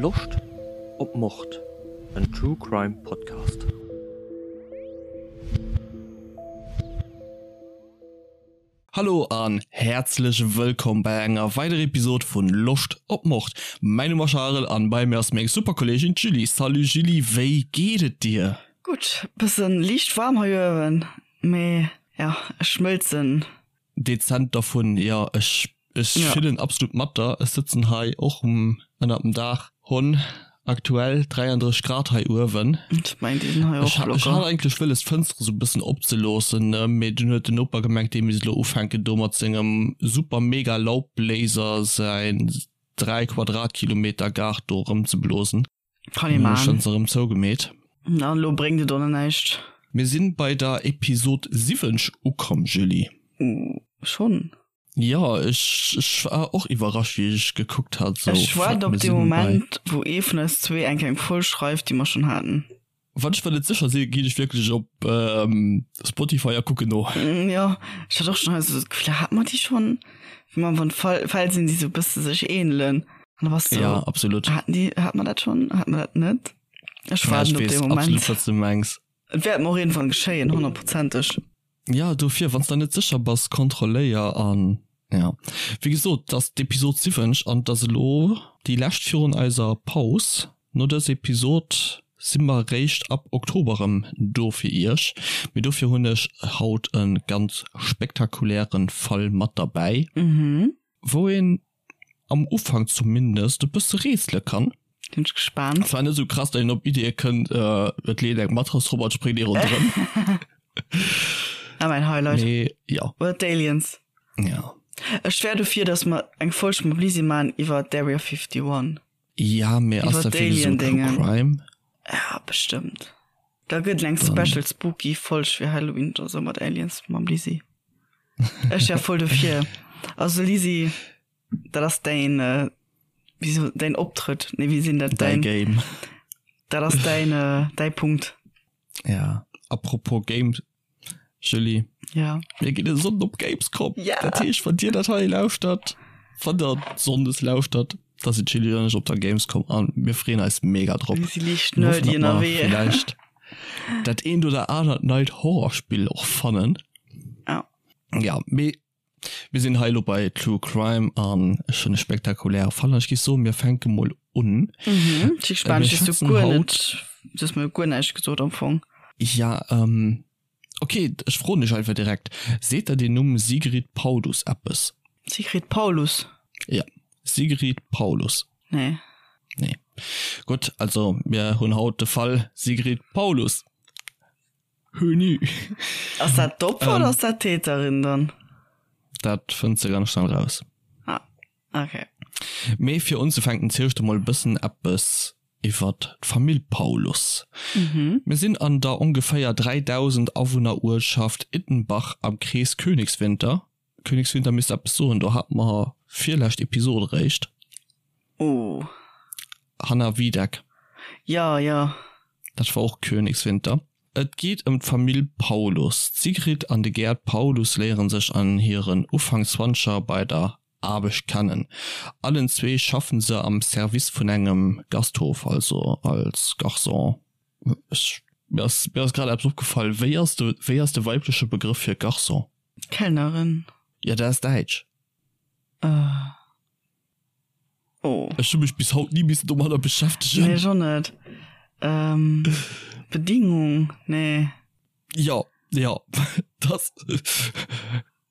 Loscht op Mord? En True Crime Podcast. Hallo an häerzlech wëllkomm bei enger weiderer Episode vun Loscht op Mord. Mäin Numm ass Charel an bei mir ass meng super Kolleegin d'Julie. Salut Julie, wéi geet et dir? Gutt, bëssen liicht waarm hei uewen, mee jo, ech schmëlzen. Dezent dervun, jo, ech ech fillen absolut mat der. Ech sëtzen hei och um ënnert dem Daach, hunn aktuell 33 Grad hei uewen. Ech mengen déi sinn hei och locker. Ech hat eigentlech wëlles d'Fënstere sou bëssen opzeloossen, mee dunn huet den Noper gemengt dee misst elo ufänken do mat sengem super mega Laubbléiser säin 3 Quadratkilometer Gaart do erëmzeblosen. Kann ee man. Ech se erëm zougemeet. An elo bréngt et och nach näischt. Mir sinn bei der Episod 70 ukomm, Julie. Uh, schonn? Jo, ech, ech war och iwwerrascht wéi ech gekuckt hat, sou, Ech fuck, waarden op mir dee sinn bei. Moment, wou ee vun eis zwee eng kleng Folg schreift, déi mer schonn haten. Wann ech mer net sécher sinn, ginn ech wierklech op Spotify a kucken no. Jo, ech hat och schonn hei sou d'Gefill, hate mer déi schonn? Wéi mer wann Fall, Fäll sinn, déi sou e bësse sech ähnelen. An da bass du, Ja, absolut. haten déi, hate mer dat schonn? Hate mer dat net? Ech Ja, ech waarden op dee weess Moment. absolut, wat s du mengs. Et wäert mer och iergendwann geschéien, honnertprozenteg. Ja, dofir, wann s der net sécher bass, kontrolléier an ja. Wéi gesot, et ass d'Episod 70 an et ass elo déi lescht virun eiser Paus. No dëser Episod si mer réischt ab Oktober erëm do fir iech, mee dofir hunn ech haut e ganz spektakuläre Fall mat derbäi, wou een am Ufank zumindest e bësse rätsele kann. Sinn ech gespaant. Zwar net esou krass, datt een op Iddie kënnt, et leet eng Matrass drop an et spréngt ee ronderëm. Ah, mäin Highlight. Mee jo. Oder d'Aliens. Ja. Ech wär dofir, datt mer eng Folg mam Lisi man iwwer d'Area 51. Ja, mee ass Iwwer dat wierklech esou True d'Alien-Déngen. Crime? Ja, bestëmmt. Da gëtt et eng Special Spooky Folg fir Halloween oder sou mat Aliens mam Lisi. Ech wär voll dofir. Also Lisi, dat ass däin, äh, wéi so, däin Optrëtt. Nee, wéi sinn dat? Däi Game. Dat ass däin, äh, däi Punkt. Ja, apropos Game, Julie. Ja. Mir ginn e Sonnden op Gamescom. Ja. Dat heescht, wann Dir dat hei lauschtert, wann der Sonndes lauschtert, da sinn d'Julie an ech op der Gamescom an mir freeën eis mega drop. Mir si liicht Mir hoffen, nerdy datt mer ënnerwee. villäicht dat eent oder anert neit Horrorspill och fannen. Ja. Ja, mee mir sinn hei elo bei True Crime an ech hunn e spektakuläre Fall an ech géif soen, mir fänke mol un. Mhm, ech si gespaant, Mir ech hues du schwätzen guer haut. net, du hues mir guer näischt gesot am Fong. Ja, ähm, okay, ech froen dech einfach direkt, Seet der den Numm Sigrid Paulus eppes? Sigrid Paulus? Ja, Sigrid Paulus. Nee. Nee. Gutt, also mir hunn haut de Fall Sigrid Paulus. Höni. Ass dat d'Opfer oder ass dat d'Täterin dann? Dat fënns de ganz schnell raus. Ah, okay. Mee fir unzefänken ziel ech der mol e bëssen eppes iwwert d'Famill Paulus. Mir sinn an der ongeféier 3.000 Awunner Uertschaft Ittenbach am Krees Königswinter. Königswinter misst eppes soen, do hate mer virlescht Episod eréischt. Oh. Hanna Wiedeck. Ja, ja. Dat war och Königswinter. Et geet ëm d'Famill Paulus. D'Sigrid an de Gerd Paulus léiere sech an hiren Ufank-Zwanzeger bei der Aarbecht kennen. Allen zwee schaffen se am Service vun engem Gasthof, also als Garçon. Ech, mir ass, mir ass grad eppes opgefall, Wéi ass de, wéi ass de weibleche Begrëff fir Garçon? Kellnerin. Jo, dat ass däitsch. Uh. Oh. Ech hu mech bis haut ni missen domadder beschäftegen. Nee, ech och net. Ähm, Bedingung, nee. Jo, jo, dat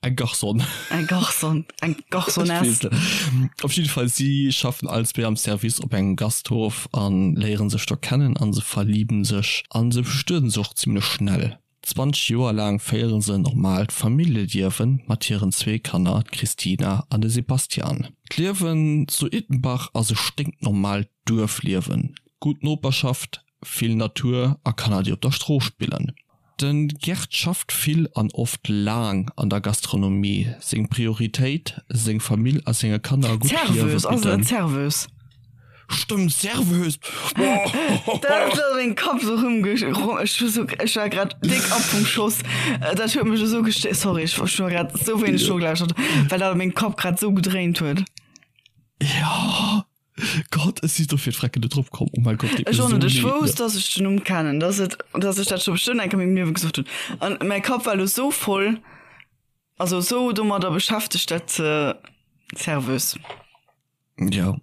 eng Garçon. Eng Garçon, eng Garçonnesse. Op jidde Fall, si schaffen allen zwee am Service op engem Gasthof an léieren sech do kennen an se verliben sech an se bestueden sech och zimlech schnell. 20 Joer laang féiere se en normaalt Familljeliewe mat hiren zwee Kanner, d'Christina an de Sebastian. D'Liewen zu Ittenbach ass e sténknormaalt Duerfliewen, gutt Noperschaft, vill Natur a Kanner déi op der Strooss spillen. De Gerd schafft vill an oft laang an der Gastronomie. Seng Prioritéit, seng Famill a senge Kanner e gutt Liewe Serveuse, ass et bidden. net Serveuse? Stëmmt, Serveuse! Dat huet an mengem Kapp esou rëmge, ech hu sou, ech war grad déck ab vum Schoss. Dat huet mech esou gestéiert, sorry, ech hu grad esou wéineg nogelauschtert, well dat a mengem Kapp grad esou gedréint huet. Jo. Gott, ech si dofir d'Frecken net drop komm. Oh mein Gott, deet mir Ech och net. esou Ech leed, wousst, ne? dass ech den Numm kennen, dass et, dass ech dat scho bestëmmt eng Kéier a mengem Liewe gesot hunn. An mäi Kapp war elo esou voll, also esou domadder beschäftegt, dat ze Serveuse. Ja.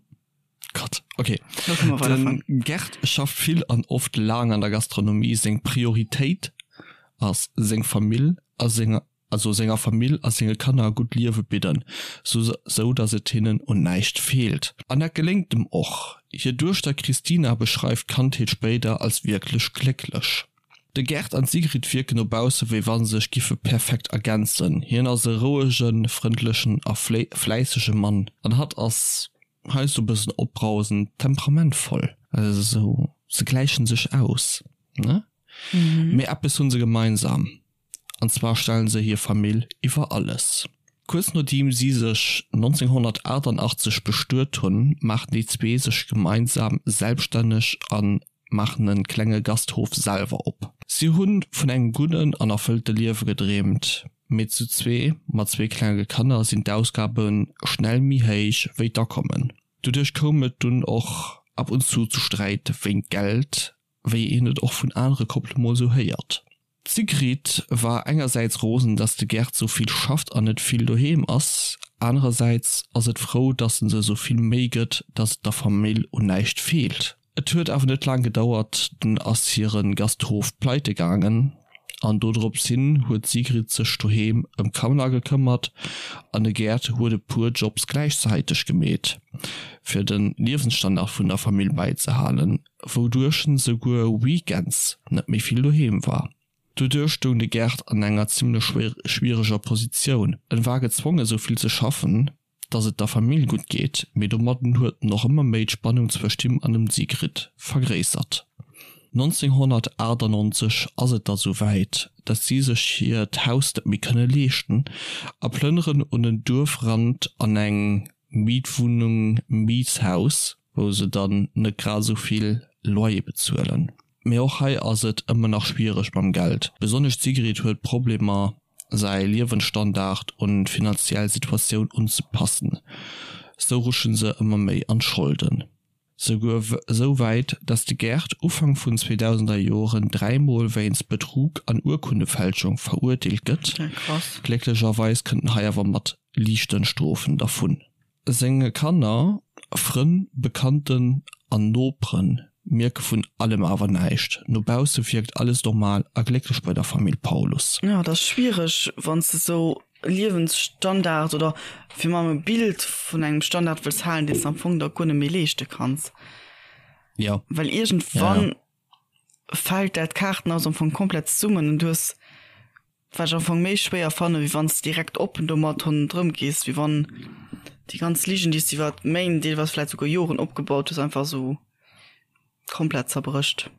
Gott, okay. Lo kënne mer weiderfueren. Den Gerd schafft vill an oft laang an der Gastronomie. Seng Prioritéit ass seng Famill a senger also senger Famill a senge Kanner e gutt Liewe bidden, sou datt et hinnen un näischt feelt. An dat geléngt em och. Hir Duechter Christina beschreift d'Kandheet spéider als wierklech glécklech. De Gerd an d'Sigrid wierken no bausse wéi wa sech giffe perfekt ergänzen. Hien ass e rouegen, frëndlechen a fläissege Mann an hatt ass heiansdo e bëssen opbrausend, temperamentvoll. Also sou, se gläichen sech aus, ne? Mee eppes hunn se gemeinsam, An zwar stellen se hir Famill iwwer alles. Kuerz nodeem si sech 1988 bestuet hunn, maachen déi zwee sech gemeinsam selbststänneg a maachen e klenge Gasthof selwer op. Si hu vun engem gudden an erfëllte Liewe gedreemt, mee zu zwee mat zwee klenge Kanner sinn d'Ausgabe schnell méi héich wéi d'Akommen. Doduerch koum et dunn och ab und zu zu Sträit wéint Geld, wéi een et och vun anere Koppele mol sou héiert. D'Sigrid war engersäits rosen, dass de Gerd sou vill schafft an net vill doheem ass, anerersäits ass et frou, dass en se sou vill Méi gëtt, dass et der Famill un näischt feelt. Et huet awer net laang gedauert, dunn ass hire Gasthof pleite gaangen an dodrops hin huet d'Sigrid sech doheem ëm d'Kanner gekëmmert an de Gerd huet e puer Jobs gläichzäiteg gemeet, fir de Liewensstandard vun der Famill bäizehalen. wouduerch en souguer weekends net méi vill doheem war. Doduerch stoung de Gerd an enger zimmlech schwiereger Positioun, en war gezwongen sou vill ze schaffen, dass et der Famill gutt geet, mee domadden huet en och ëmmer méi d'Spannung zwëscht him an dem Sigrid vergréissert. 1998 ass et da sou wäit, dass si sech hiert Haus net méi kënne leeschten a plënneren un den Duerfrand an eng Mietwunnung, Mietshaus, wou se dann net grad esou vill Loyer bezuelen. Mee och hei ass et ëmmer nach schwiereg mam Geld. Besonnesch d'Sigrid huet Problemer säi Liewensstandard un d'finanziell Situatioun unzepassen. Sou rutsche se ëmmer méi an d'Scholden. Souguer esou wäit, dass de Gerd Ufank vun 2000er Joren dräimol wéinst Betrug an Urkundefälschung verurteelt gëtt. Glécklecherweis kënnt en hei awer mat liichten Strofen dervun. Senge Kanner, Frënn, Bekannten an Nopere mierke vun allem awer näischt. No bausse wierkt alles normal a glécklech bei der Famill Paulus. Jo, et ass schwiereg, wann s de esou e Liewensstandard oder fir mam e Bild vun engem Standard wëlls halen, deen s de am Fong der guer net méi leeschte kanns. Jo. Well iergendwann fält dat Kaartenhaus am Fong komplett zesummen an du hues Wat ech am Fong méi schwéier fannen, wéi wann s de direkt oppen domat hannendrëm gees, wéi wann déi ganz Ligen, déi s de iwwer Méint, deelweis vläit souguer Joren opgebaut hues, einfach esou komplett zerbrécht.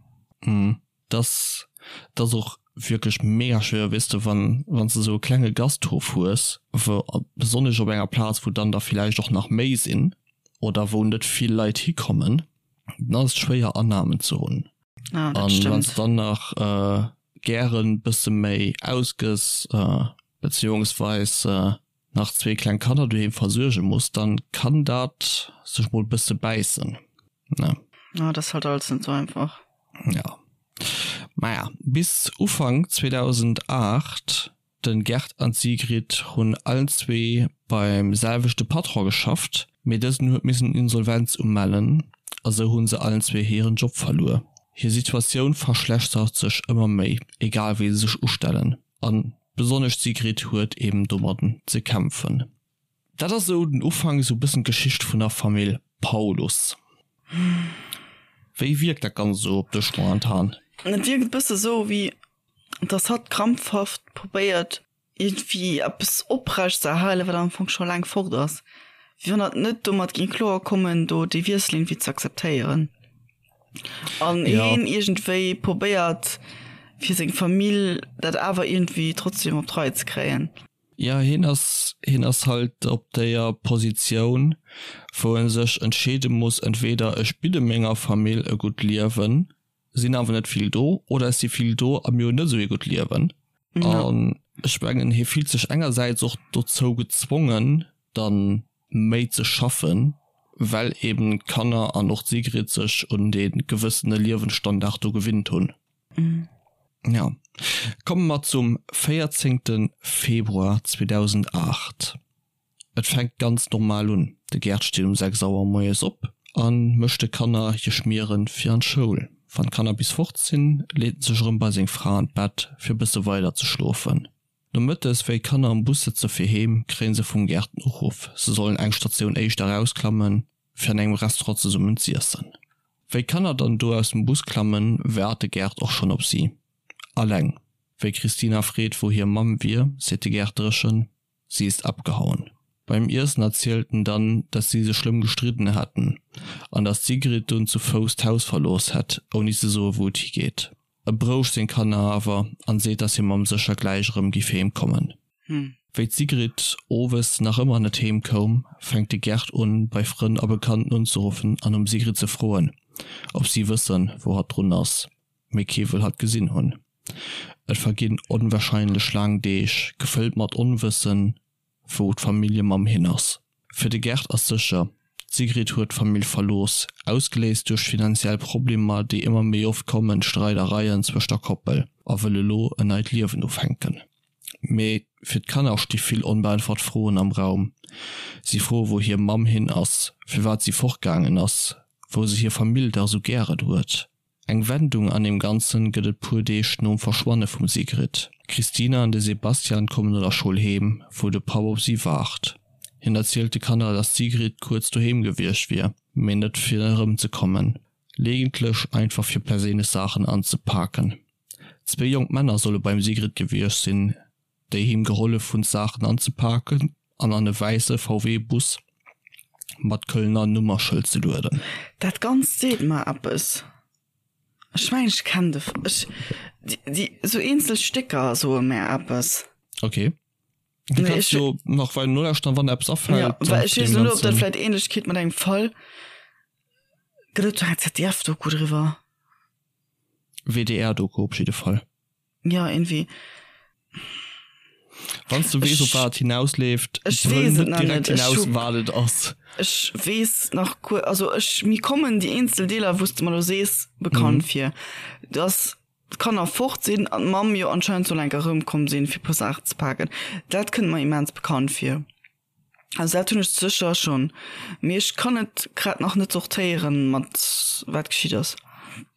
Mhm. Dass dat ass och wierklech mega schwéier, weess de, wann wann s de esou e klenge Gasthof hues, wou, besonnesch op enger Plaz, wou dann der villäicht och nach méi sinn oder wou net vill Leit hikommen, dann ass et schwéier Annahmen ze hunn. Ah, dat An wann s stëmmt. dann nach gären bësse méi ausgëss, beziehungsweis nach zwee kleng Kanner doheem versuerge muss, dann kann dat sech mol bësse bäissen, ne? Ah, dat ass halt alles net sou einfach. Ja. Maja, bis Ufank 2008 Den Gerd an d'Sigrid hunn allen zwee beim selwechte Patron geschafft, mee dësen huet missen Insolvenz umellen a sou hunn se allen zwee hiren Job verluer. Hir Situatioun verschlechtert sech ëmmer méi, egal wéi se sech ustellen, an besonnesch d'Sigrid huet eben domadden ze kämpfen. Dat ass esou den Ufank, esou e bëssen d'Geschicht vun der Famill Paulus. Wéi wierkt dat Ganzt esou op dech momentan? Et wierkt e bësse sou, wéi dass hatt krampfhaft probéiert, iergendwéi eppes oprecht ze erhalen, wat am Fong scho laang fort ass. Wéi wann hatt net domat géing kloer kommen, do dee Wiessel iergendwéi ze akzeptéieren. An hien iergendwéi probéiert, fir seng Famill dat awer iergendwéi trotzdem op d'Rei ze kréien. Jo, hien ass, hien ass halt op déier Positioun, wou e sech entscheede muss, entweder ech bidde menger Famill e gutt Liewen, sinn awer net vill do, oder ech si vill do a mir hunn net esou ee gutt Liewen. An ech mengen, hie fillt sech engersäits och dozou gezwongen, dann méi ze schaffen. Well eben d'Kanner an och d'Sigrid sech un dee gewëssene Liewensstandard do gewinnt hunn. Jo. Komme mer zum 14 Februar 2008. Et fänkt ganz normal un, de Gerd steet um 6 Auer moies op a mécht de Kanner hir Schmieren fir an d'Schoul. Wann d'Kanner bis fort sinn, leet en sech erëm bei seng Fra an d'Bett fir e bësse weider ze schlofen. Nomëttes, wéi d'Kanner am Bus sëtze fir heem, kréien se vum Gerd den Uruff, se sollen eng Statioun éischter erausklammen, fir an engem Restaurant zesummen z'iessen. Wéi d'Kanner dann do aus dem Bus klammen, waart de Gerd och schonn op si. Alleng. Wéi d'Christina freet, wou hir Mamm wier, seet de Gerd dréchen, Sie ist abgehauen. Beim Iessen erzielt en dann, dass si sech schlëmm gestridden hätten an dass d'Sigrid dunn zu Fouss d'Haus verlooss hätt, ouni ze soe wou et higeet. E berouegt seng Kanner awer an seet, dass hir Mamm sécher gläich erëm giff heem kommen. Wéi d'Sigrid owes nach ëmmer net heem koum, fänkt de Gerd un, bei Frënn a Bekannten unzeruffen an nom Sigrid ze froen, ob si wëssen, wou hatt drun ass. Mee kee wëll hatt gesinn hunn. Et verginn onwahrscheinlech laang Deeg, gefëllt mat Onwëssen, wou d'Familljemamm hin ass. Fir de Gerd ass sécher, d'Sigrid huet d'Famill verlooss, ausgeléist duerch finanziell Problemer, déi ëmmer méi oft kommen, Streidereien zwëscht der Koppel, a wëll elo en neit Liewen ufänken. Mee fir d'Kanner sti vill onbeäntwert Froen am Raum. Si froe wou hir Mamm hin ass, firwat si fortgaangen ass, wou se hir Famill dach esou gären huet. Eng Wendung an deem Ganzen gëtt et puer Deeg nom Verschwanne vum Sigrid. D'Christina an de Sebastian kommen no der Schoul heem, wou de Papp op si waart. Hien erzielt de Kanner, dass d'Sigrid kuerz doheem gewiescht wier, mee net fir erëmzekommen, legentlech einfach fir perséinlech Saachen anzepaken. Zwéi jonk Männer solle beim Sigrid gewiescht sinn, déi him gehollef hunn d'Saachen anzepaken an an e wäisse VW-Bus mat Kölner Nummerschëld ze lueden. Dat Ganzt seet mer eppes. Ech mengen ech kennen de, ech, déi, esou eenzel Stécker soe mär eppes. Ok. Du Nee, kanns ech, jo nach weider nolauschteren, wann der eppes ja, afält well ech zu weess deem elo net, ob dat Ganzen. vläit Ähnlechkeet mat engem Fall gëtt. Et do eng ZDF-Doku driwwer? WDR-Doku op jidde Fall. Ja, irgendwie. Wann s du weess, op Ech, wat et hinausleeft, ech brëll weess et net nach direkt net. Ech hinaus, hu, wat et ass. ech weess nach guer, also ech, mir kommen déi eenzel Deeler, wou s de mer elo sees, bekannt Mhm. vir. Dass d'Kanner fort sinn an d'Mamm jo anscheinend soll enk erëmkomm sinn, fir e puer Saachen ze paken. Dat kënnt mer immens bekannt vir. Also dat hunn ech sécher schonn, mee ech kann et grad nach net sortéieren, mat wat geschitt ass.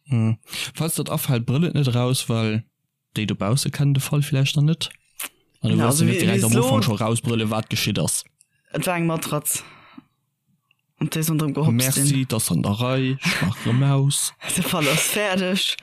Hm. Falls der et afält, brëll et net eraus, well déi dobausse kennen de Fall villäicht nach net. An du Ja, wëlls also jo net wéi direkt wéi am elo, Ufank scho rausbrëlle wat geschitt ass. et war eng Matratz, op déi se ronderëm gehopst sinn. Merci, 't ass an der Rei, ech maach erëm aus. De Fall ass fäerdeg.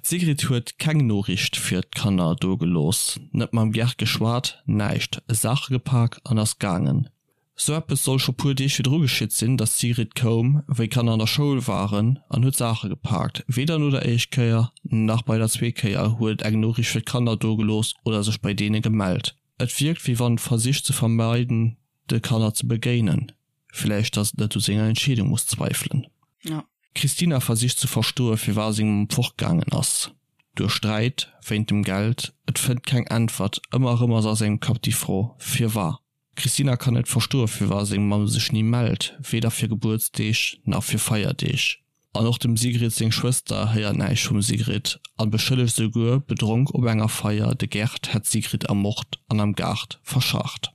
D'Sigrid huet keng Noriicht fir d'Kanner do gelooss, net mam Gerd geschwat, näischt, Saache gepak an ass gaangen. Sou eppes soll scho puer Deeg virdru geschitt sinn, dass d'Sigrid koum, wéi d'Kanner an der Schoul waren, an huet Saache gepaakt. Weder no der éischt Kéier, nach bei der zweet Kéier huet et eng Noriicht fir d'Kanner do gelooss oder sech bei deene gemellt. Et wierkt, wéi wann versicht ze vermeiden, de Kanner ze begéinen. Villäicht, dass et net u senger Entscheedung muss zweifelen. Ja. D'Christina versicht ze verstoe firwat seng Mamm fortgaangen ass. Duerch Sträit, wéint dem Geld, et fënnt keng Äntwert. Ëmmer erëm ass a sengem Kapp déi Fro, Firwat? D'Christina kann net verstoe firwat seng Mamm sech ni mellt, weder fir Gebuertsdeeg nach fir Feierdeeg. An och dem Sigrid seng Schwëster héiert näischt vum Sigrid an beschëllegt esouguer, bedronk op enger Feier, de Gerd hätt d'Sigrid ermort an am Gaart verscharrt.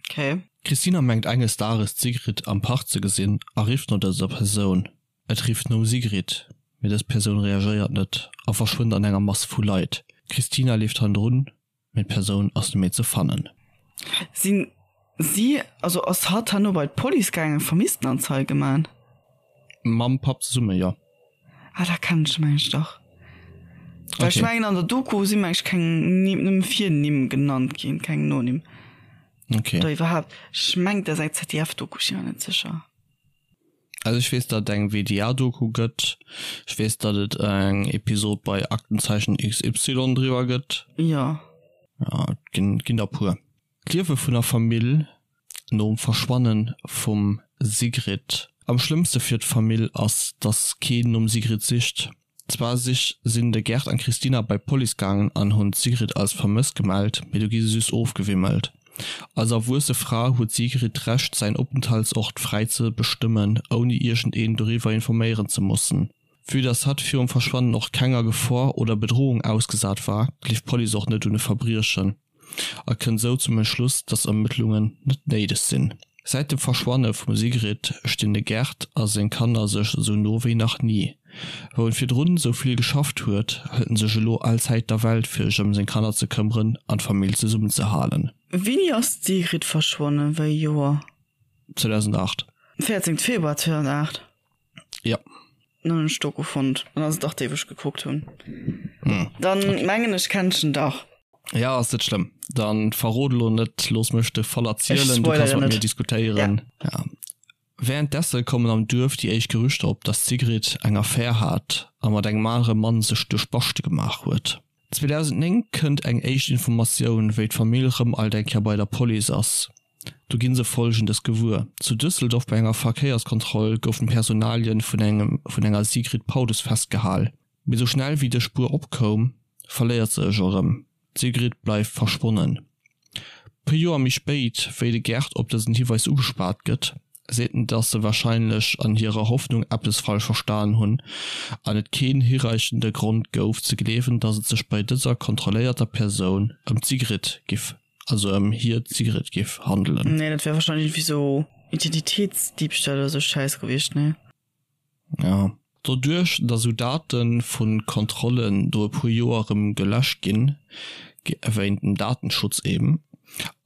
Okay. D'Christina mengt enges Dages d'Sigrid am Park ze gesinn a rifft no dëser Persoun. Et rifft nom Sigrid, mee dës Persoun reagéiert net a verschwënnt an enger Mass vu Leit. D'Christina leeft hannendrun, mee d'Persoun ass net méi ze fannen. Sinn si, also ass hatt herno bei d'Police gaangen, Vermisstenanzeige man? Mam Papp zesumme, jo. Ah, da kennen ech meng ech dach. Well ech mengen an der Doku si meng ech keng Nimm, nëmme Virnimm genannt ginn, keng Nonimm. Okay. Oder iwwerhaapt, ech mengen dat ass eng ZDF-Doku, ech sinn mer net sécher. Also ech weess, datt et eng WDR-Doku gëtt. Ech weess, datt et eng Episod bei Aktenzeichen XY driwwer gëtt. Jo. Ja, et ginn, ginn der puer. D'Liewe vun der Famill nom Verschwanne vum Sigrid. Am schlëmmste fir d'Famill ass, datt keen nom Sigrid sicht. Zwar sich sinn de Gerd an d'Christina bei d'Police gaangen an hunn d'Sigrid als vermësst gemellt, mee do gi se just ofgewimmelt. Als erwuesse Fra huet d'Sigrid d'Recht säin Openthaltsort fräi ze bestëmmen, ouni iergendeen doriwwer informéieren ze mussen. Vue dass hatt virum Verschwannen och kenger Gefor oder Bedrohung ausgesat war, gleeft d'Police och net un e Verbriechen a kënnt sou zum Entschluss, dass Ermëttlungen net néideg sinn. Säit dem Verschwanne vum Sigrid stinn de Gerd a seng Kanner sech sou no wéi nach ni. Wou en virdrun sou vill geschafft huet, hëlt en sech elo all Zäit der Welt fir sech ëm seng Kanner ze këmmeren an d'Famill zesummen ze halen. Wéini ass d'Sigrid verschwonnen? Wéi ee Joer? 2008. 14 Februar 2008? Jo. Dann hunn ech Doku fonnt. Dann ass et dach déi wou ech gekuckt hunn. Dann mengen ech kennt ech en dach. Ja ass net schlëmm. Dann verrot elo net, looss mech de Fall erzielen, du kanns mat mir diskutéieren. Ja. Wärenddessen kommen am Duerf déi éischt Gerüchter op, dass d'Sigrid eng Affär hat a mat engem anere Mann sech duerch Baschte gemaach huet. 2009 kënnt eng éischt Informatioun, wéi d'Famill rëm alt eng Kéier bei der Police ass. Do gi se Folgendes gewuer, Zu Düsseldorf bei enger Verkéierskontroll goufen d'Personalien vun engem vun enger Sigrid Paulus festgehal. Mee sou schnell wéi dës Spuer opkoum, verléiert se ech erëm. D'Sigrid bleift verschwonnen. Puer Joer méi spéit, wéi de Gerd op dësen Hiweis ugespaart gëtt, seet en, dass se warscheinlech an hirer Hoffnung eppes falsch verstan hunn an et keen hireichende Grond gouf ze gleewen, dass et sech bei dëser kontrolléierter Persoun ëm d'Sigrid giff, also ëm hir d'Sigrid giff handelen. Nee, dat wär warscheinlech iergendwéi sou Identitéitsdiebstahl oder sou Schäiss gewiescht, nee? Jo. Doduerch, datt esou Date vu Kontrollen no e puer Joer erëm geläscht ginn, wéint dem Datenschutz eben,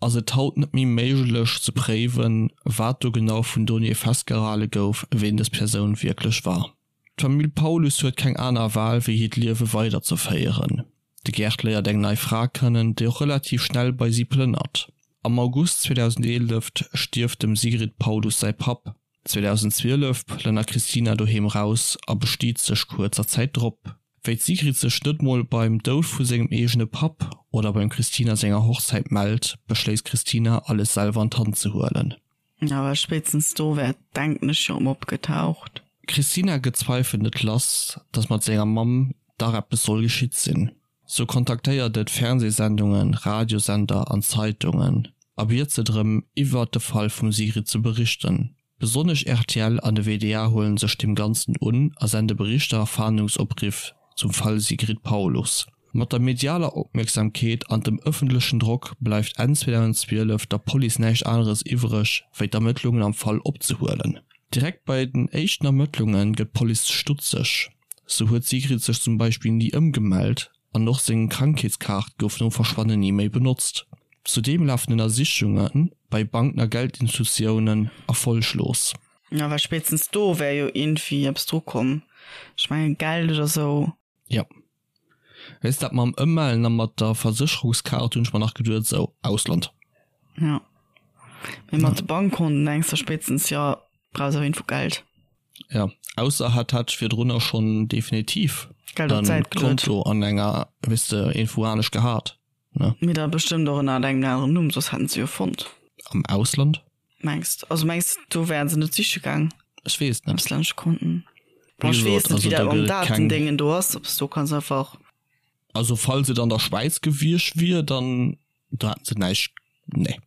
ass et haut net méi méiglech ze préiwen, wat do genau vun Donnéeë festgehale gouf, ween dës Persoun wierklech war. D'Famill Paulus huet keng aner Wahl, wéi hiert Liewe weiderzeféieren. De Gerd léiert eng nei Fra kennen, déi och relativ schnell bei si plënnert. Am August 2011 stierft dem Sigrid Paulus säi Papp. 2012 plënnert d'Christina doheem raus a bestiet sech kuerzer Zäit drop. Wéi d'Sigrid sech net mol beim Doud vu sengem eegene Papp oder beim Christina senger Hochzäit mellt, beschléisst d'Christina alles selwer an d'Hand ze huelen. Awer spéitstens do wär denken ech jo erëm opgetaucht. D'Christina gëtt d'Zweifel net lass, dass mat senger Mamm dach eppes soll geschitt sinn. Sou kontaktéiert et Fernsehsendungen, Radiosender an Zeitungen a biet se drëm, iwwert de Fall vum Sigrid ze berichten. Besonnesch rtl an de WDR huelen sech deem Ganzen un a sende Berichter a Fahndungsopriff zum Fall Sigrid Paulus. Mat der medialer Opmierksamkeet an dem ëffentlechen Drock bleift Enn 2012 der Police näischt aneres iwwreg, wéi d'Ermëttlungen am Fall opzehuelen. Direkt bei den éischten Ermëttlunge gëtt d'Police stutzeg. Sou huet d'Sigrid sech zum Beispill ni ëmgemellt an och seng Krankheetskaart gouf nom Verschwannen ni méi benotzt. Zudeem lafen Ënnersichunge bei Banken a Geldinstitutiounen erfolleglos. Jo, well spéitstens do wär jo iergendwéi eppes dru komm. Ech mengen Geld oder sou. Jo. Weess dat mam Ëmmellen a mat der Versécherungskaart hunn ech mer nach geduet, sou Ausland. Jo. Mee mat de Bankkonten denks de spéitstens, jo, brauchs auf jeden Fall Geld. Ja, ausser hat hat virdrunner schonn definitiv Geld op d'Säit geluet. Konto an enger, weess de, iergendwou anescht gehat, ne? Mee da bestëmmt och ënner engem aneren Numm, soss hätten se jo fonnt. Am Ausland? Mengs de? Also mengs de, do wären se net siche gaang? Ech weess et net. Auslännesche Konten. Bon, ech weess net, wéi dat mam Datendéngen do ass, ob s do kanns einfach. Also falls et an der Schwäiz gewiescht wier, dann do hätten se näischt, nee.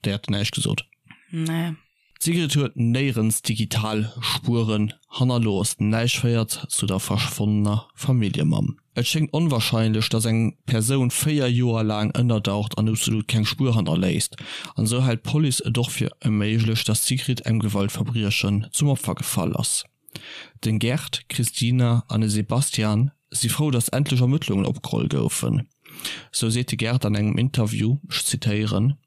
Déi hat näischt gesot. Nee. D'Sigrid huet néierens digital Spueren hannerlooss, näischt féiert zu der verschwonnener Familljemamm. Et schéngt onwarscheinlech, datt eng Persoun 4 Joer laang ënnerdaucht an absolut keng Spuer hannerléisst. An esou hält d'Police et och fir méiglech, datt d'Sigrid engem Gewaltverbriechen zum Opfer gefall ass. Den Gerd, d'Christina an de Sebastian si frou, datt endlech Ermëttlungen opgeholl goufen. Sou seet de Gerd an engem Interview, ech zitéieren,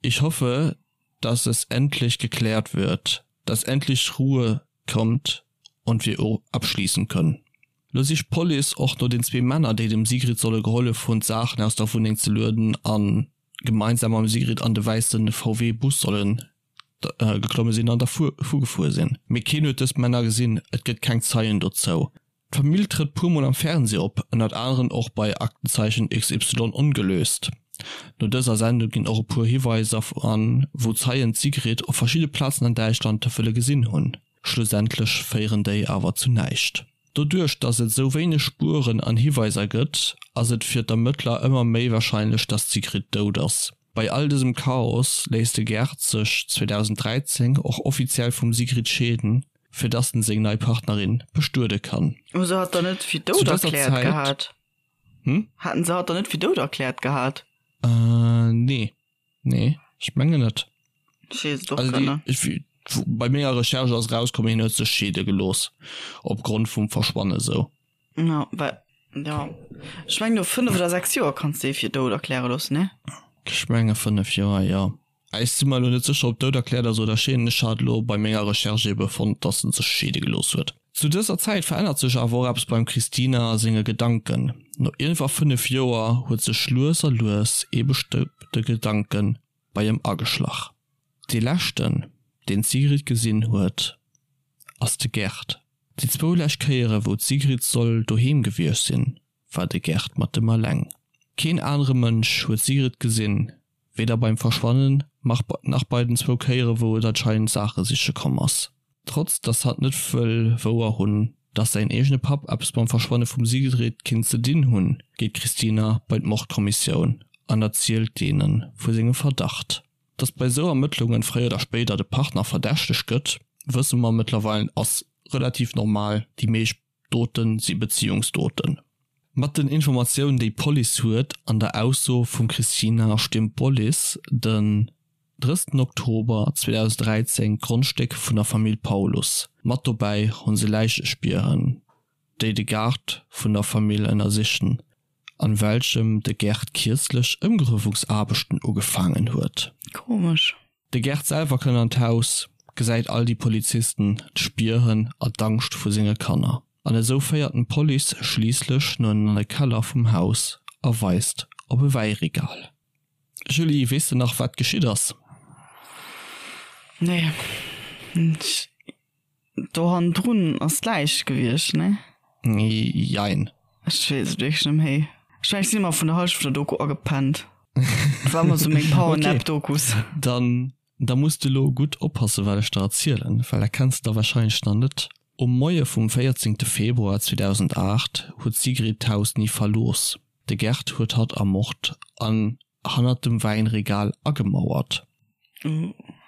Ich hoffe, dass es endlich geklärt wird, dass endlich Ruhe kommt und wir abschließen können. Lo sicht d'Police och no den zwee Männer, déi dem Sigrid solle gehollef hunn, d'Saachen aus der Wunneng ze lueden a gemeinsam mam Sigrid an de wäisse VW-Bus sollen geklomme sinn an dervu gefuer sinn. Mee keen huet dës Männer gesinn, et gëtt keng Zeien dozou. D'Famill trëtt puer mol am Fernsee op, ënnert aneren och bei Aktenzeichen XY ongelöst. No dëser Sendung ginn och e puer Hiweiser an, wou Zeien d'Sigrid op verschidde Plazen an Däitschland wëlle gesinn hunn. Schlussendlech féieren déi awer zu näischt. Doduerch dass et sou wéineg Spueren an Hiweiser gëtt, ass et fir d'Ermëttler ëmmer méi warscheinlech, dass d'Sigrid dout ass. Bei all dësem Chaos léisst de Gerd sech 2013 och offiziell vum Sigrid scheeden, fir dass en seng nei Partnerin bestuede kann. Hu se hatt dann net fir dout erkläert gehat? Hm? Haten se hatt dann net fir dout erkläert gehat? Äh, nee. Nee, ech mengen net. Ech weess et och grad net. Also déi, bei menger Recherche ass erauskomm, hien huet sech scheede gelooss opgrond vum Verschwanne sou. Ja, well, ja. Ech mengen no 5 oder 6 Joer kanns de ee fir dout erkläre loossen, ne? Ech menge 5 Joer, jo. Ech si mer elo net sécher, ob dout erkläert ass oder scheeden. Ech hat elo bei menger Recherche ebe fonnt, dass en sech scheede gelooss huet. Zu dëser Zäit verännert sech awer och eppes beim Christina senge Gedanken. No iergendwa 5 Joer huet sech lues a lues ee bestëmmte Gedanke bei em ageschlach. Dee leschten, deen d'Sigrid gesinn huet, ass de Gerd. Déi zwou lescht Kéiere wou d'Sigrid soll doheem gewiescht sinn, war de Gerd mat em alleng. Keen anere Mënsch huet d'Sigrid gesinn, weder beim Verschwannen nach bei den zwou Kéiere wou et anscheinend Saache siche komm ass. Trotz dass hatt net wëll wouer hunn, dass säin eegene Papp eppes mam Verschwanne vum Sigrid kinnt ze dinn hunn, geet d'Christina bei d'Mordkommissioun an erzielt deene vu sengem Verdacht. Dass bei esou Ermëttlungen fréier oder spéider de Partner verdächtegt gëtt, wësse mer mëttlerweil ass relativ normal, déi meescht Doten si Beziehungsdoten. Mat den Informatiounen déi d'Police huet an der Ausso vum Christina stiermt d'Police den 30 Oktober 2013 d'Grondstéck vun der Famill Paulus. Mat dobäi hunn se Läichespieren déi de Gaart vun der Famill ënnersichen an welchem de Gerd kierzlech Ëmgruewungsaarbechten ugefaangen huet. Komesch. De Gerd selwer kënnt an d'Haus, gesäit all déi Polizisten, d'Spieren a d'Angscht vu senge Kanner. An esou féiert en d'Police schliisslech no an de Keller vum Haus a weist op e Wäiregal. Julie, weess de nach wat geschitt ass? Nee. Do hannendrun ass d'Läich gewiescht, nee? Jein. Ech weess et wierklech net méi. Ech mengen, ech sinn ëmmer vun der Hallschent vun der Doku agepennt. Dat war ëmmer sou meng Powernap-Dokus. Dann, da muss de lo gutt oppassen, wat ech der erzielen, well dat kenns de da wahrscheinlech nach net. Um Moie vum 14 Februar 2008 huet d'Sigrid d'Haus ni verlooss. De Gerd huet hatt ermort an hannert dem Wäinregal agemauert.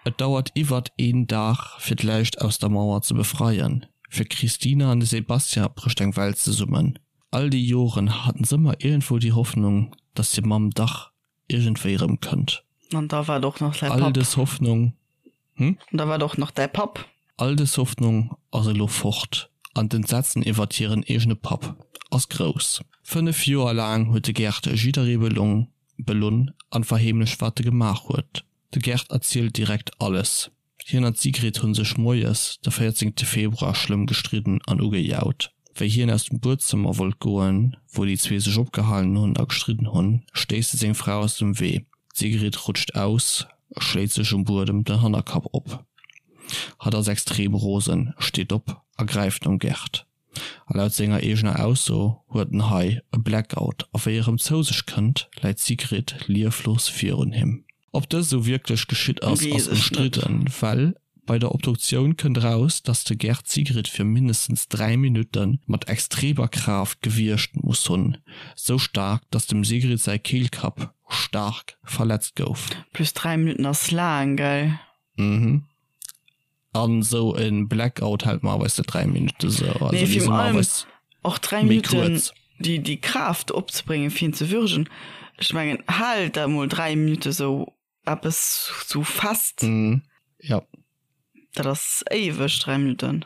Et dauert iwwert een Dag fir d'Läich aus der Mauer ze befreien. Fir d'Christina an de Sebastian brécht eng Welt zesummen. All déi Joren haten s'ëmmer iergendwou déi Hoffnung, dass hir Mamm dach iergendwéi erëm kënnt. An da war et och nach säi All Papp. dës Hoffnung, hm? An da war et och nach däi Papp. All dës Hoffnung ass elo fort an d'Entsetzen iwwert hiren eegene Papp ass grouss. 5 Joer laang huet de Gerd jidderee belong, belunn an verheemlecht wat e gemaach huet. De Gerd erzielt direkt alles. Hien an d'Sigrid hunn sech moies de 14 Februar schlëmm gestridden an ugejaut. Wéi hien aus dem Buedzëmmer wollt goen, wou déi zwee sech opgehalen hunn a gestridden hunn, stéisst e seng Fra aus dem Wee. D'Sigrid rutscht aus, schléit sech um Buedem den Hannerkapp op. Hatt ass extrem rosen, steet op a gräift nom Gerd. A laut senger eegener Ausso huet en hei e Blackout a wéi e rëm zou sech kënnt, läit d'Sigrid lieflos virun him. Ob dëst esou wierklech geschitt ass, ass ëmstridden, well bei der Obduktioun kënnt eraus, dass de Gerd d'Sigrid fir mindestens 3 Minutte mat extremer Kraaft gewiergt muss hunn, sou staark, dass dem Sigrid säi Keelkapp staark verletzt gouf. Plus 3 Minutten ass laang, gell? Mhm. An sou en Blackout hält normalerweis net 3 Minutten sou. Also Nee, déi virun sinn allem normalerweis och 3 méi Minutten kuerz. déi, déi Kraaft opzebréngen fir en ze würgen. Ech mengen, hal dat mol 3 Minutte sou eppes sou fest. Mhm, ja. Dat ass éiweg, 3 Minutten.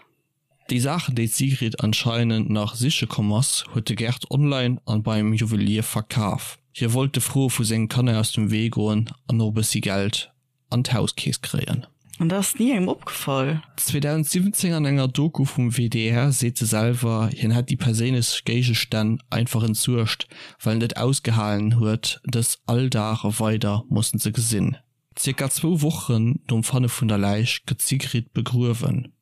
Déi Saachen, déi d'Sigrid anscheinend nach siche komm ass, huet de Gerd online an beim Juwelier verkaf. Hie wollt de Froe vu senge Kanner aus dem Wee goen an och e bëssi Geld an d'Hauskeess kréien. An dat ass ni engem opgefall. 2017 an enger Doku vum WDR seet e selwer, hien hätt déi perséinlech Géigestänn einfach entsuergt, well en et ausgehalen huet, dës all Dag weider mussen ze gesinn. Zirka zwou Wochen nom Fanne vun der Läich gëtt d'Sigrid begruewen.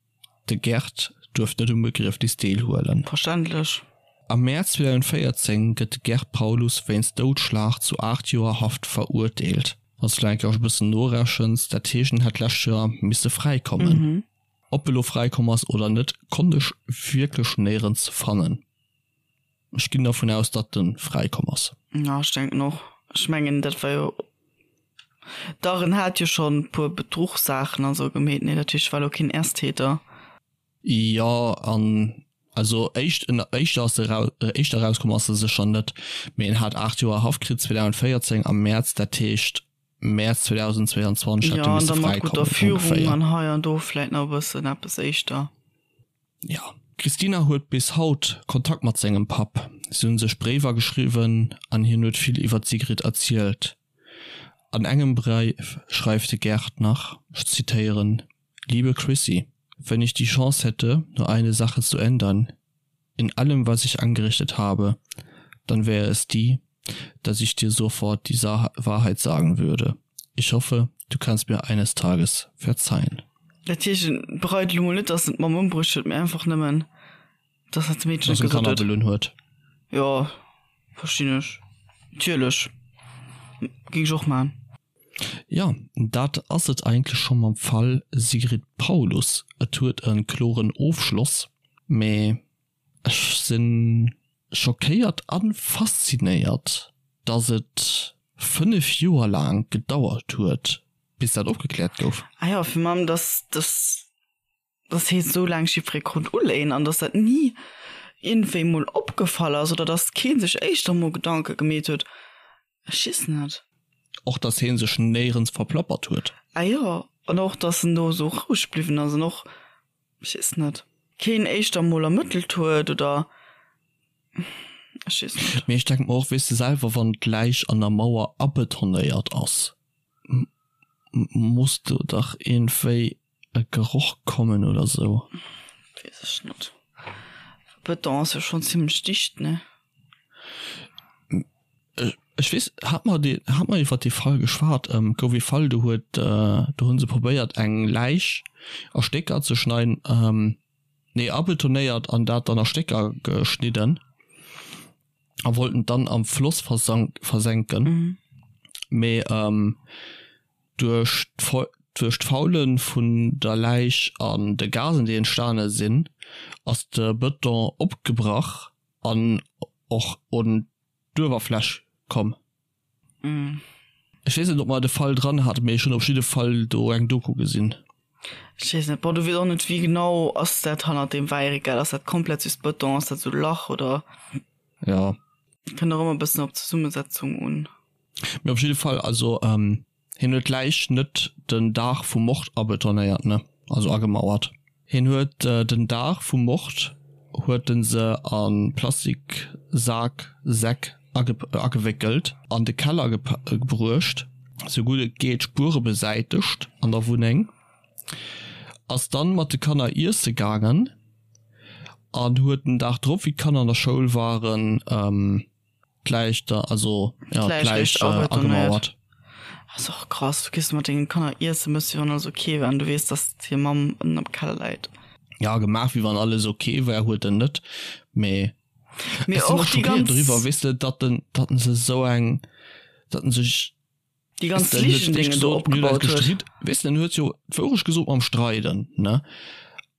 De Gerd duerft net um Begriefnis deelhuelen. Verständlech. Am Mäerz 2014 gëtt de Gerd Paulus wéinst Doudschlag zu 8 Joer Haft verurteelt. Wann s du eng Kéier e bëssen norechens, dat heescht en hätt d'lescht Joer misse fräikommen. Ob e lo fräikomm ass oder net, konnt ech wierklech néierens fannen. Ech ginn dervun aus, datt en fräikomm ass. Jo, ech denken och. Ech mengen, dat war jo. Dach en hat jo schonn puer Bedruchssaachen an sou gemeet, nee? Dat heescht war lo keen Ersttäter. Jo an also éischt éischter ass e rau éischter erauskomm ass e sécher net, mee en hat 8 Joer Haft kritt 2014 am Mäerz, dat heescht Mäerz 2022 hätt e misse Jo an da mat fräikommen gudder Führung ongeféier. an hei an do vläit nach e bëssen eppes éischter. Jo. D'Christina huet bis haut Kontakt mat sengem Papp. Si hunn sech Bréiwer geschriwwen an hien huet vill iwwer d'Sigrid erzielt. An engem Bréif schreift de Gerd nach, ech zitéieren, Liebe Chrissy, wenn ich die Chance hätte, nur eine Sache zu ändern in allem, was ich angerichtet habe, dann wäre es die, dass ich dir sofort die Sa Wahrheit sagen würde. Ich hoffe, du kannst mir eines Tages verzeihen. Dat heescht, en bereit elo mol net, dass en d'Mamm ëmbruecht huet, mee einfach nëmmen, dass dat Meedchen Dass et en gesot Kanner huet. belunn huet. Jo, verstinn ech. Natierlech. Géing ech och maachen. Jo, dat ass et eigentlech scho mam Fall Sigrid Paulus. Et huet e kloren Ofschloss, mee ech si schockéiert a faszinéiert, dass et 5 Joer laang gedauert huet, bis dat opgekläert gouf. Ah jo, fir mam, dass dass dass hee sou laang jiddweree konnt uléien an dass dat ni iergendwéi mol opgefall ass oder dass kee sech éischter mol Gedanke gemeet huet, ech weess net. Och dass hee sech néierens verplappert huet. Ah jo, an och dass en do esou roueg bliwwen ass an och, ech weess net, keen éischter mol ermëttelt huet oder ech weess net. Mee ech denke mer och, weess de selwer, wann d'Läich an der Mauer abetonéiert ass, muss do dach iergendwéi e Geroch kommen oder sou. Wees ech net. Beton ass jo schon zimmlech dicht, ne? Ech weess, hat mer dee, hat mer iwwer dee Fall geschwat? Gouf ee Fall, do huet, do hu se probéiert eng Läich a Stécker ze schneiden, nee abetonéiert an dat dann a Stécker geschnidden a wollten d'dan am Floss versank, versenken, mee Duerch d'Faule vun der Läich an de Gasen, déi entstane sinn, ass de Bëton opgebrach an och un d'Uewerfläch komm. Ech weess net, ob mer de Fall dran haten, mee ech hunn op jidde Fall do eng Doku gesinn. Ech weess net. Bon, du weess och net, wéi genau ass dat hannert deem Wäiregal? Ass dat komplett just Bëton? Ass dat esou e Lach oder? Jo. Kënnt och ëmmer e bëssen op d'Zesummesetzung un. Mee op jidde Fall, also hien huet d'Läich net den Dag vum Mord abetonéiert, ne, also agemauert. Hien huet den Dag vum Mord huet en se a Plastiksak, Säck agewéckelt, an de Keller gebruecht, sou gutt et geet d'Spuere besäitegt an der Wunneng, ass dann mat de Kanner iesse gaangen an huet den Dag drop, wéi d'Kanner an der Schoul waren, D'Läich da, also ja, d'Läich agemauert. Ass och krass, du gees mat dengen Kanner iessen, mëss wéi wann alles ok wär an du weess, dass hir Mamm ënnen am Keller läit. Ja, gemaach wéi wann alles ok wär, huet en net, mee Mee ech sinn och och déi schockéiert ganz. doriwwer, weess de, datt en, datt en se esou eng, datt en sech, Déi weess ganz de, en huet Ligen, d'éischt déi en do gesot, mir hunn eis opgebaut huet. gestritt, weess de, en huet jo d'Wourecht gesot mam Streiden, ne,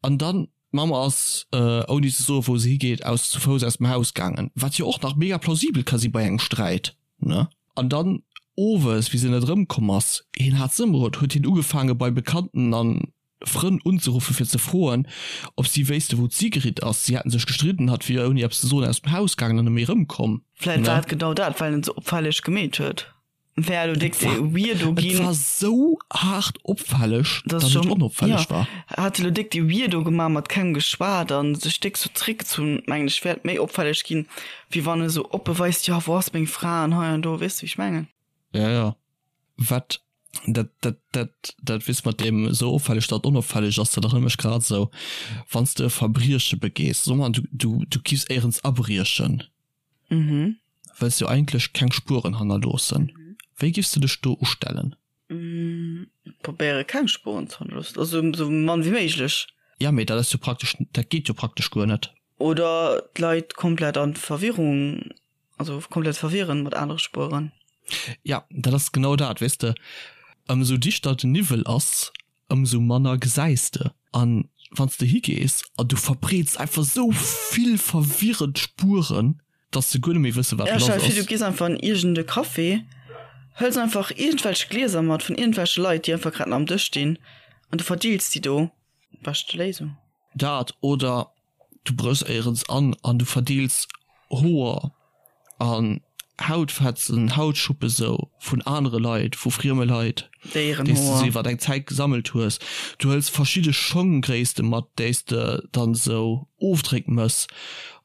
an dann D'Mamm ass, ouni ze soen, wou se higeet, aus zu Fouss aus dem Haus gaangen, wat jo och nach mega plausibel ka si bei engem Sträit, ne? An dann owes, wéi se net erëmkomm ass, hien hat se ëmgeholl, huet hien ugefaange bei Bekannten a Frënn unzeruffe fir ze froen, ob si wéisste wou d'Sigrid ass. Si hätten sech gestridden, hatt wier ouni eppes ze soen aus dem Haus gaangen an net méi erëmkomm, Vläit war ne? et genau dat, well en et sou opfälleg gemeet huet. Wär elo déck Et war, weirdo et ginn. war sou haart opfälleg, Das datt et schon, onopfälleg ja, war. hat elo déck déi weirdo gemaach, mat kengem geschwat an sech déck sou zréckgezunn, mengen ech, wär et méi opfälleg ginn, wéi wann e sou oppe weist, jo, wou ass meng Fra an hei an do, weess de wéi ech mengen? Ja, ja. Wat, dat, dat, dat, dat weess mat deem sou opfälleg, datt et onopfälleg ass, dat erënnert mech grad esou, wann s de e Verbrieche begees, soe mer, du, du, du giffs éierens abriechen, Mhm. Wëlls jo eigentlech keng Spueren hannerloossen. Wéi giffs de dech do ustellen? Probéiere keng Spueren ze hannerloossen, also sou mann wéi méiglech. Ja, mee dat ass jo praktesch, dat geet jo praktesch guer net. Oder d'Leit komplett an Verwirrung, also komplett verwirren mat anere Spueren. Ja, dat ass genau dat, weess de, ëmsou dichter den Niwwel ass, ëmsou manner gesäis de. An wann s de higees an du verbreets einfach sou vill verwirrend Spueren, dass se guer net méi wësse wat Ja, lass stell dir vir, du ass. gees einfach an iergend e Café. Hëls einfach iergendwelch Glieser mat vun iergendwelche Leit, déi einfach grad nach am Dësch stinn an du verdeels déi do. Beschte Léisung. Dat oder du bréchs éierens an an du verdeels Hoer an Hautfetzen, Hautschuppe sou vun anere Leit, vu frieme Leit, déi s de sou iwwer eng Zäit gesammelt hues. Du hëls verschidde Schonggréisste mat, déi s de dann sou Ofdréck mëss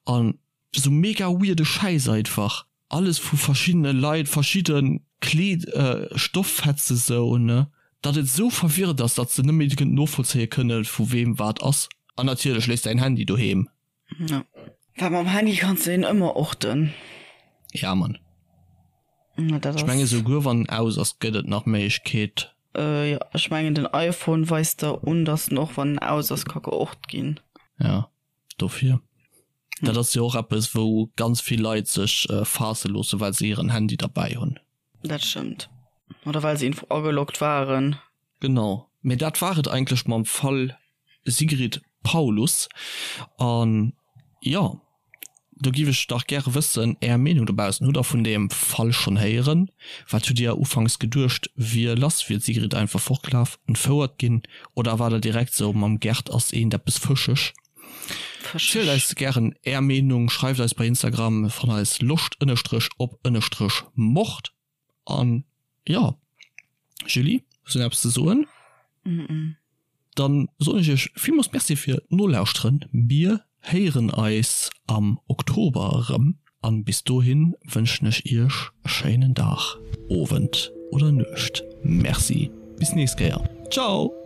an sou mega weirde Schäiss einfach. Alles vu verschiddene Leit, verschidde Kleed, Stofffetze sou, ne, datt et sou verwirrend ass, datt s de net méi novollzéie kënne vu weem wat ass. An natierlech léiss däin Handy doheem. Ja. Well mam Handy kanns de een ëmmer orten. Ja Mann. Ja, dat Ech menge souguer wann en aus ass, gëtt et nach Méiglechkeet. Äh, jo, ech mengen den iPhone weist der un, datt en och wann en aus ass ka geort ginn. Ja, dofir. Dat ass jo och eppes wou ganz vill Leit sech faasse loosse well se hiren Handy derbäi hunn. Dat stëmmt. Oder well se info ageloggt waren. Genau. Mee dat war et eigentlech mam Fall Sigrid Paulus. An jo, do giff ech dach gäre wëssen, Är Meenung dobaussen. Hutt der vun deem Fall schonn héieren? Wat hutt Dir ufanks geduecht wier lass? Wier d'Sigrid einfach fortgelaf, entfouert ginn? Oder war der direkt sou, mam Gerd ass eent eppes fëscheg? Zielt eis gären Är Meenung, schreift eis bei Instagram, fannt eis loscht ënnerstrech op ënnerstrech mord. An jo, Julie, hues du nach eppes ze soen? Dann soen ech iech villmools Merci fir d'Nolauschteren. Mir héieren eis am Oktober erëm an bis dohin wënschen ech iech e schéinen Dag, Owend oder Nuecht. Merci, bis nächst Kéier. Ciao!